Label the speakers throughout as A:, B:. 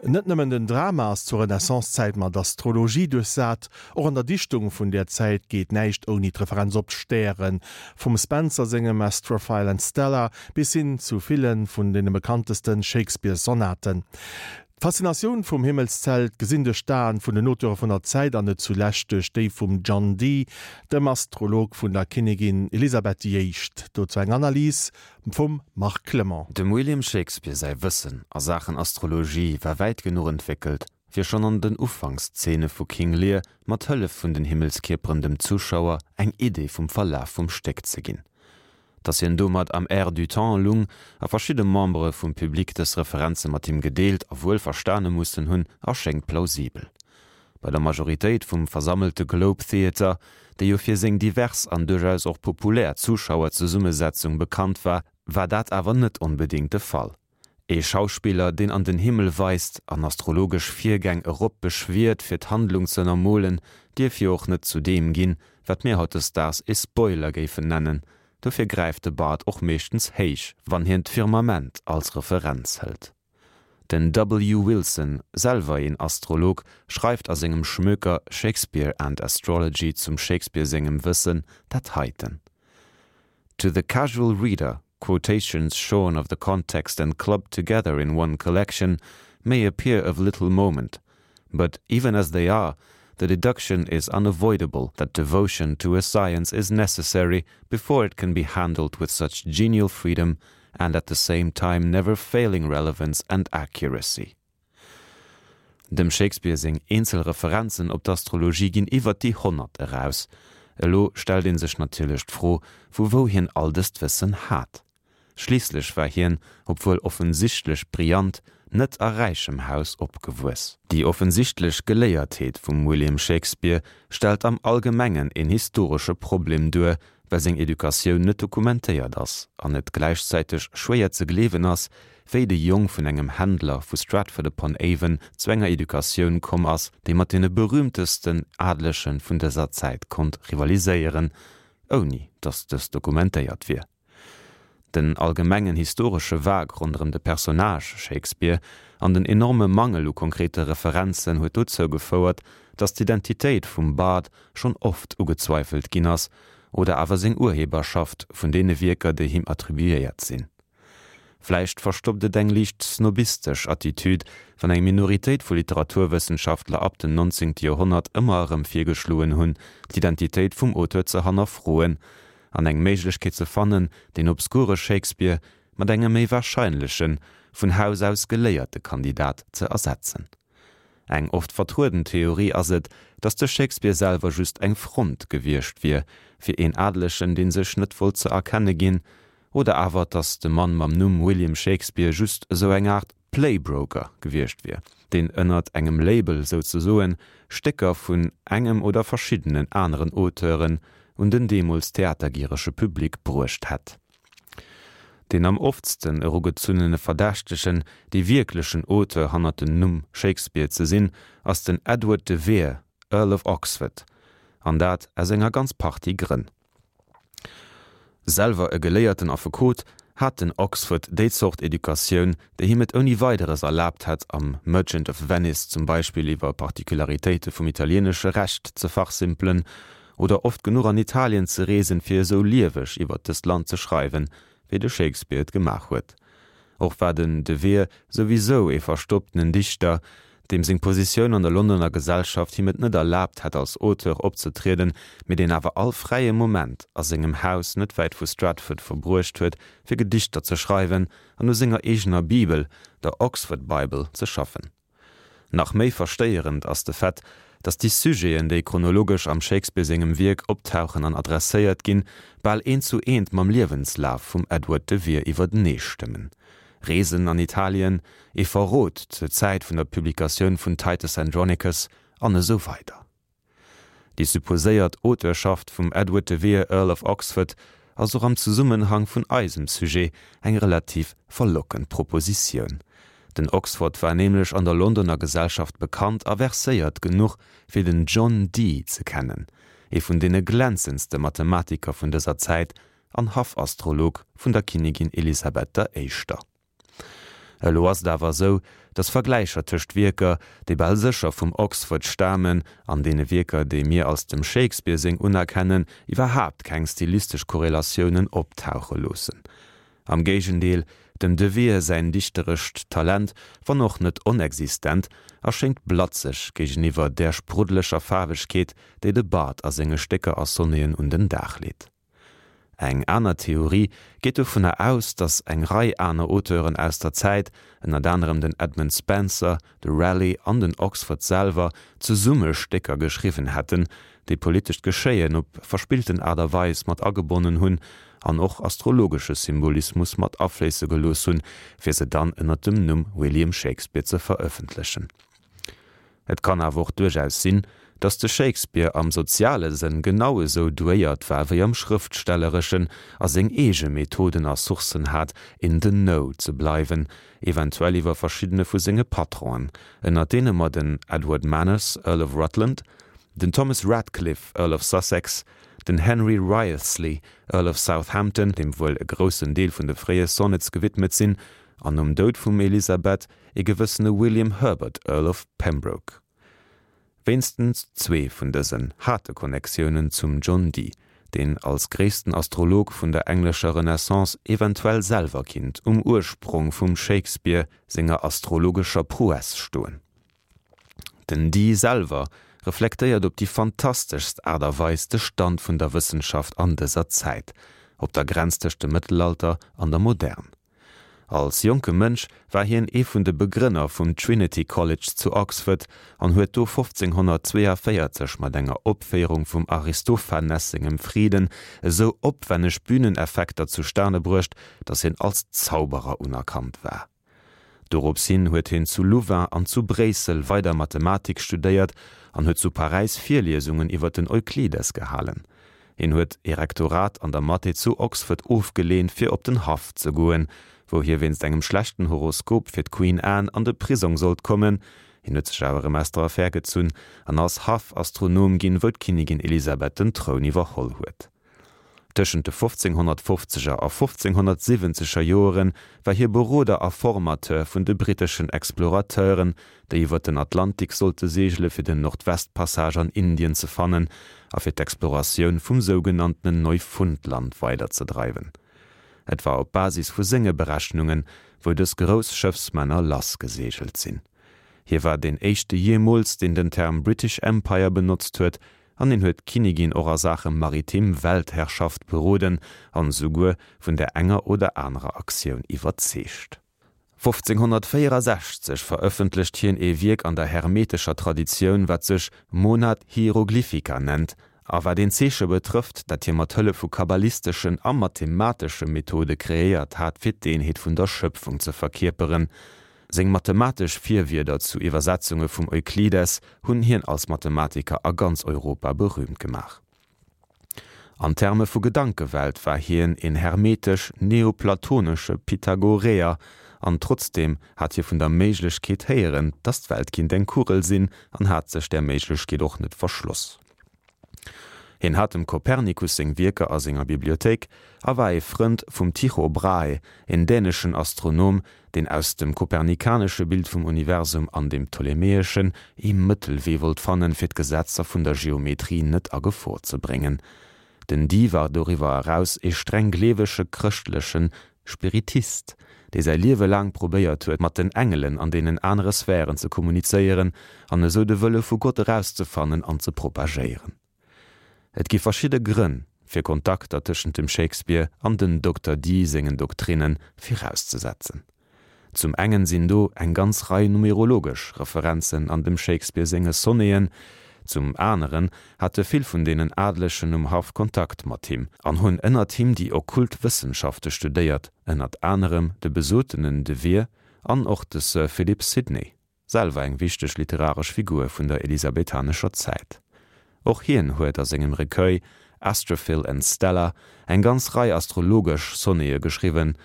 A: Net nëmmen den Drama ass zur Renaissance-Zäit mat Astrologie duerchsat, och an der Dichtung vun där Zäit geet näischt ouni d'Referenz op d'Stären, vum Spenser sengem Astrophile and Stella bis hin zu ville vun deene bekannteste Shakespeare-Sonaten. D'Faszinatioun vum Himmelszelt, gesinn duerch d'Aen vun den Auteure vun der Zäit an net zulescht duerch déi vum John Dee, dem Astrolog vun der Kinnigin Elisabeth déi Éischt. Dozou eng Analys vum Marc Clement.
B: Dem William Shakespeare säi Wëssen a Saachen Astrologie war wäit genuch entwéckelt, fir schonn an den Ufankszene vu King Lear mat Hëllef vun den Himmelskierperen dem Zuschauer eng Idee vum Verlaf vum Stéck ze ginn. Datt hien domat am Air du temps lung a verschidde Membere vum Public dës Referenze mat him gedeelt a wuel verstane mussen hunn, erschéngt plausibel. Bei der Majoritéit vum versammelte Globe Theatre, dee jo fir seng divers an duerchaus och populär Zuschauerzesummesetzung bekannt war, war dat awer net onbedéngt de Fall. Ee Schauspiller, deen an den Himmel weist an astrologesch Virgäng erop beschwiert fir d'Handlung ze ënnermolen, dierf jo och net zu deem ginn, wat mir hautdesdaags ee Spoiler géifen nennen. Dofir gräift de Bart och meeschtens héich, wann hien d'Firmament als Referenz hëlt. Den W. Wilson, selwer een Astrolog, schreift a sengem Schmöker Shakespeare and Astrology zum Shakespeare sengem Wëssen dat heiten, To the casual reader, quotations shorn of the context and clubbed together in one collection may appear of little moment, but even as they are, the deduction is unavoidable that devotion to a science is necessary before it can be handled with such genial freedom and at the same time never failing relevance and accuracy. Dem Shakespeare seng eenzel Referenzen op d'Astrologie ginn iwwert déi 100 eraus. Elo stellt ee sech natierlech d'Fro, vu wou hien all dëst Wëssen hat. Schliisslech war hien, obwuel offensichtlech brillant, net a räichem Haus opgewuess. Déi offensichtlech Geléiertheet vum William Shakespeare stellt am Allgemengen een historesche Problem duer, well seng Educatioun net dokumentéiert ass an et gläichzäiteg schwéier ze gleewen ass, wéi de Jong vun engem Händler vu Stratford-upon-Avon zu enger Educatioun komm ass, déi mat deene berüümtesten Adelege vun dëser Zäit konnt rivaliséieren, ouni datt dës dokumentéiert wier. Den allgemengen historesche Vague ronderëm de Personnage Shakespeare an den enorme Mangel u konkrete Referenzen huet dozou gefouert, datt d'Identitéit vum Bard schonn oft ugezweifelt ginn ass, oder awer seng Urheberschaft vun deene Wierker, déi him attribuéiert sinn. Vläicht verstoppt et eng liicht snobistesch Attitüd, wann eng Minoritéit vu Literaturwëssenschaftler ab dem 19. Joerhonnert ëmmer erëm virgeschloen hunn, d'Identitéit vum Auteur ze hannerfroen an eng Méiglechkeet ze fannen, deen obskure Shakespeare mat engem méi warscheinlechen, vun Haus aus geléierte Kandidat ze ersetzen. Eng oft vertrueden Theorie ass et, datt de Shakespeare selwer just eng Front gewiescht wier fir een Adelegen, dee sech net wollt ze erkenne ginn, oder awer, datt de Mann mam Numm William Shakespeare just esou eng Aart Playbroker gewiescht wier, deen ënnert engem Label souzesoen Stécker vun engem oder verschiddenen aneren Auteuren un den deemools theatergierege Public bruecht hätt. Deen am oftsten erugezunnene Verdächtegen, dee wierklechen Auteur hannert dem Numm Shakespeare ze sinn, ass den Edward de Vere, Earl of Oxford, an dat aus enger ganz Partie Grënn. Selwer e geléierten Affekot, hat den Oxford déi Zort Educatioun, déi him et ouni Weideres erlaabt hätt, am Merchant of Venice zum Beispill iwwer Particularitéite vum italienesche Recht ze fachsimpelen oder oft genuch an Italien ze reesen, fir esou lieweg iwwer dëst Land ze schreiwen, wéi de Shakespeare et gemaach huet. Och war den De Vere souwisou ee verstopptenen Dichter, deem seng Positioun an der Londoner Gesellschaft him et net erlaabt hätt als Auteur opzetrieden, mee deen awer all fräie Moment a sengem Haus net wäit vu Stratford verbruecht huet, fir Gedichter ze schreiwen an u senger eegener Bibel, der Oxford Bible, ze schaffen. Nach méi verstéierend ass de Fait, datt déi Sujeten, déi chronologesch am Shakespeare sengem Wierk optauchen an adresséiert ginn, bal eent zu eent mam Liewenslaf vum Edward de Vere iwwertenee stëmmen, Reesen an Italien, ee Verrot zur Zäit vun der Publikatioun vun Titus Andronicus an esou weider. Déi supposéiert Auteurschaft vum Edward de Vere, Earl of Oxford, ass och am Zesummenhang vun eisem Sujet eng relativ verlockend Propositioun. Den Oxford war nämlech an der Londoner Gesellschaft bekannt a verséiert genuch, fir den John Dee ze kennen, ee vun deene glänzendste Mathematiker vun dëser Zäit an Haffastrolog vun der Kinnigin Elisabeth der Éischter. Elo ass et awer esou, datt Vergläicher tëscht Wierker, déi bal sécher vum Oxford stamen, an deene Wierker, déi mir als dem Shakespeare seng unerkennen, iwwerhaapt keng stilistesch Korrelatiounen optauche loossen. Am Géigendeel, dem De Vere säin dichterescht Talent, wann och net onexistent, erschéngt blatzeg géigeniwwer där spruddeleger Faarwegkeet, déi de Bard a senge Stécker a Sonneten un den Dag leet. Eng aner Theorie geet dovunner aus, datt eng Rei aner Auteuren aus der Zäit, ënnert anerem den Edmund Spenser, de Raleigh an den Oxford selwer, zesumme Stécker geschriwwen hätten, déi politescht Geschéien op verspillten Aart a Weis mat agebonnen hunn an och astrologesche Symbolismus mat afléisse gelooss hunn, fir se dann ënnert dem Numm William Shakespeare ze verëffentlechen. Et kann awer och duerchaus sinn, datt de Shakespeare am soziale Sënn genau esou douéiert war wéi am schrëftstellereschen a seng eege Methoden a Sourcen hat, in the know ze bleiwen, eventuell iwwer verschiddene vu senge Patronen, ënner deene mer den Edward Manners, Earl of Rutland, den Thomas Ratcliffe, Earl of Sussex, den Henry Wriothesley, Earl of Southampton, deem wuel e groussen Deel vun de fréie Sonnets gewidmet sinn, an nom Doud vum Elisabeth e gewëssene William Herbert, Earl of Pembroke. Wéinstens zwee vun dësen hate Connectiounen zum John Dee, deen als gréissten Astrolog vun der englescher Renaissance eventuell selwer kinnt um Ursprong vum Shakespeare senger astrologescher Prouesse stoen. Den Dee selwer reflektéiert op déi fantasteschst Aart a Weis de Stand vun der Wëssenschaft an dëser Zäit, op der Grenz tëscht dem Mëttelalter an der Modern. Als jonke Mënsch war hien ee vun de Begrënner vum Trinity College zu Oxford an huet do 1542 mat enger Opféierung vum Aristophanes sengem Friden esou opwänneg Bühneneffekter zustane bruecht, datt hien als Zauberer unerkannt war. Dorops hin huet hien zu Louvain an zu Bréissel weider Mathematik studéiert an huet zu Paräis Virliesungen iwwer den Euklides gehalen. Hien huet ee Rektorat an der Mathé zu Oxford ofgeleent fir op den Haff ze goen, wou hie wéinst engem schlechten Horoskop fir d'Queen Anne an de Prisong sollt kommen. Hien huet sech awer erëm aus der Affär gezunn an ass Haffastronom ginn, wou d'Kinnigin Elisabeth den Troun iwwerholl huet. Tëschent de 1550er a 1570er Joere war hie Beroder a Formateur vun de britteschen Explorateuren, déi iwwer den Atlantik sollte seegele fir den Nordwestpassage an Indien ze fannen a fir d'Exploratioun vum sougenanntenen Neufundland weiderzedreiwen. Et war op Basis vu senge Berechnungen, wou dës grouss Schëffsmänner lassgeseegelt sinn. Hie war deen éischte jeemools, deen den Term British Empire benotzt huet, an hien huet d'Kinnigin och a Saache maritim Weltherrschaft beroden an esouguer vun där enger oder anerer Aktioun iwwerzeegt. 1564 verëffentlecht hien ee Wierk an der hermetescher Traditioun, wat sech Monad Hieroglyphica nennt a wat een Zeeche betrëfft, dat hie mat Hëllef vu kabbalisteschen a mathematesche Methode kreéiert hat, fir d'Eenheet vun der Schëpfung ze verkierperen. Seng mathematesch Virwierder zu Iwwersetzunge vum Euklides hunn hien als Mathematiker a ganz Europa berüümt gemaach. An Terme vu Gedankewelt war hien een hermetesch-neoplatonesche Pythagoreer, an trotzdeem hat hie vun der Méiglechkeet héieren, datt d'Welt kinnt eng Kugel sinn, an hat sech där Méiglechkeet och net verschloss. Hien hat dem Kopernikus seng Wierker a senger Bibliothéik a war ee Frënd vum Tycho Brahe, een däneschen Astronom, deen aus dem kopernikanesche Bild vum Universum an dem ptolemäeschen ee Mëttelwee wollt fannen, fir d'Gesetzer vun der Geometrie net a Gefor ze bréngen. Den Dee war doriwwer eraus ee streng gleewege chrëschtleche Spiritist, dee säi Liewe laang probéiert huet, mat den Engelen an deenen anere Sphären ze kommunizéieren an esou de Wëlle vu Gott erauszefannen an ze propagéieren. Et gi verschidde Grënn, fir Kontakter tëschent dem Shakespeare an den Dokter Dee sengen Doktrinne virauszesetzen. Zum engen sinn do eng ganz Rei numerologesch Referenzen an dem Shakespeare senge Sonneten, zum aneren hate vill vun deenen Adlegen um Haff Kontakt mat him an hunn ënnert him déi okkult Wëssenschafte studéiert, ënnert anerem de besotenen De Vere an och de Sir Philip Sidney. Selwer eng wichteg literaresch Figur vun der elisabethanescher Zäit. Och hien huet a sengem Recueil Astrophil and Stella eng ganz Rei astrologesch Sonnete geschriwwen,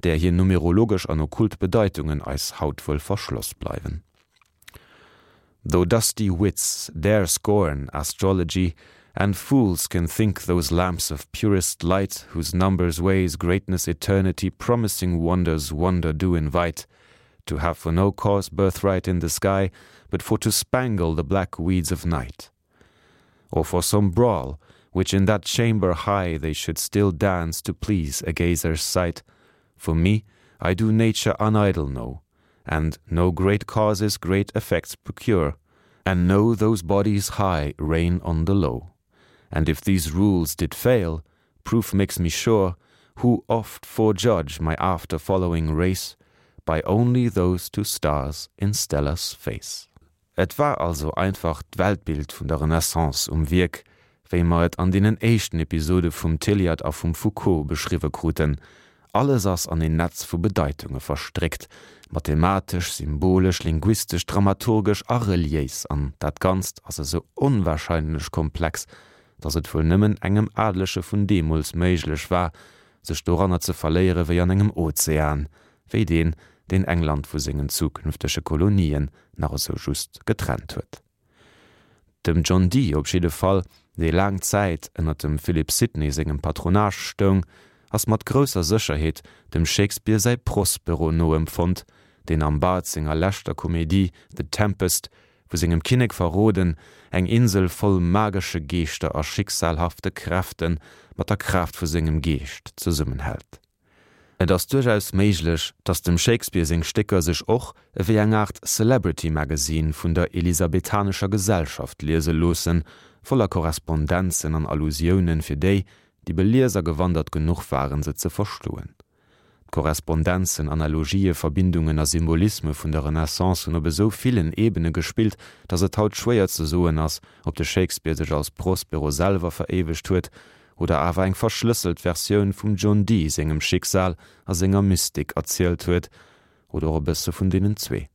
B: där hir numerologesch an okkult Bedeitungen eis haut wuel verschloss bleiwen. Though dusty wits dare scorn astrology, And fools can think those lamps of purest light Whose numbers weighs greatness eternity Promising wonders wonder do invite. To have for no cause birthright in the sky, But for to spangle the black weeds of night. Or for some brawl, which in that chamber high They should still dance to please a gazer's sight, For me, I do nature unidle know, And know great causes great effects procure, And know those bodies high reign on the low. And if these rules did fail, proof makes me sure, Who oft forejudge my after following race By only those two stars in Stella's face. Et war also einfach d'Weltbild vun der Renaissance um Wierk, wéi mer et an deenen éischten Episode vum Tilliard a vum Foucault beschriwwe kruten. Alles ass an een Netz vu Bedeitunge verstréckt, mathematesch, symbolesch, linguistesch, dramaturgesch a reliéis, an dat Ganzt ass esou onwahrscheinlech komplex, datt et wuel nëmmen engem Adelege vun deemools méiglech war, sech doranner ze verléiere wéi an engem Ozean, wéi deen, deen England vu sengen zukünftege Kolonien nach esou just getrennt huet. Dem John Dee op jidde Fall, dee laang Zäit ënner dem Philip Sidney sengem Patronage stoung, ass mat grousser Sécherheet dem Shakespeare säi Prospero noempfonnt, deen am Bard senger leschter Komedie The Tempest vu sengem Kinnek verroden, eng Insel voll magesche Geeschter a schicksalhafte Kräfte mat der Kraaft vu sengem Geescht zesummenhält. Et ass duerchaus méiglech, datt dem Shakespeare seng Stécker sech och ewéi eng Aart Celebrity Magazine vun der elisabethanescher Gesellschaft liese loossen, voller Korrespondenzen an Allusiounen fir déi, déi belies a gewandert genuch waren, se ze verstoen. D'Korrespondenzen, Analogië, Verbindungen a Symbolisme vun der Renaissance hunn op esou villen Ebene gespillt, datt et haut schwéier ze soen ass, ob de Shakespeare sech als Prospero selwer veréiwegt huet oder awer eng verschlësselt Versioun vum John Dee sengem Schicksal a senger Mystik erzielt huet, oder och e bësse vun deenen zwee.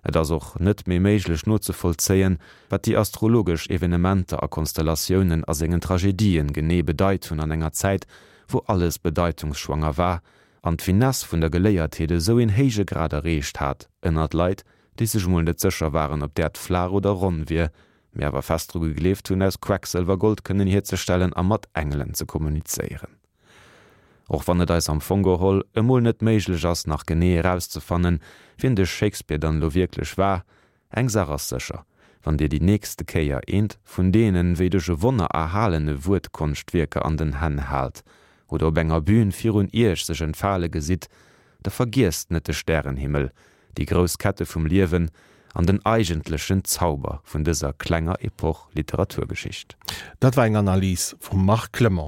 B: Et ass och net méi méiglech nozevollzéien, wat déi astrologesch Evenementer a Konstellatiounen a sengen Tragedien genee bedeit hunn an enger Zäit, wou alles bedeitungsschwanger war an d'Finesse vun der Geléiertheet esou een héije Grad erreecht hat ënnert Leit, déi sech emol net sécher waren, ob d'Äerd flaach oder ronn wier, mee awer fest dru gegleeft hunn, aus Quecksëlwer Gold kënnen hierzestellen a mat Engelen ze kommunizéieren. Och wann et eis am Fong geholl emol net méiglech ass, nach genee erauszefannen, wien de Shakespeare dann elo wierklech war, eng Saach ass sécher, Wann Dir déi nächste Kéier eent vun deenen, wéi duerch e Wonner erhalene Wuertkonschtwierker an den Hänn haalt oder op enger Bühn virun Iech sech entfale gesitt, da vergiesst net de Stärenhimmel, déi grouss Kette vum Liewen an den eigentlechen Zauber vun dëser klenger Epoch Literaturgeschicht.
A: Dat war eng Analys vum Marc Clement.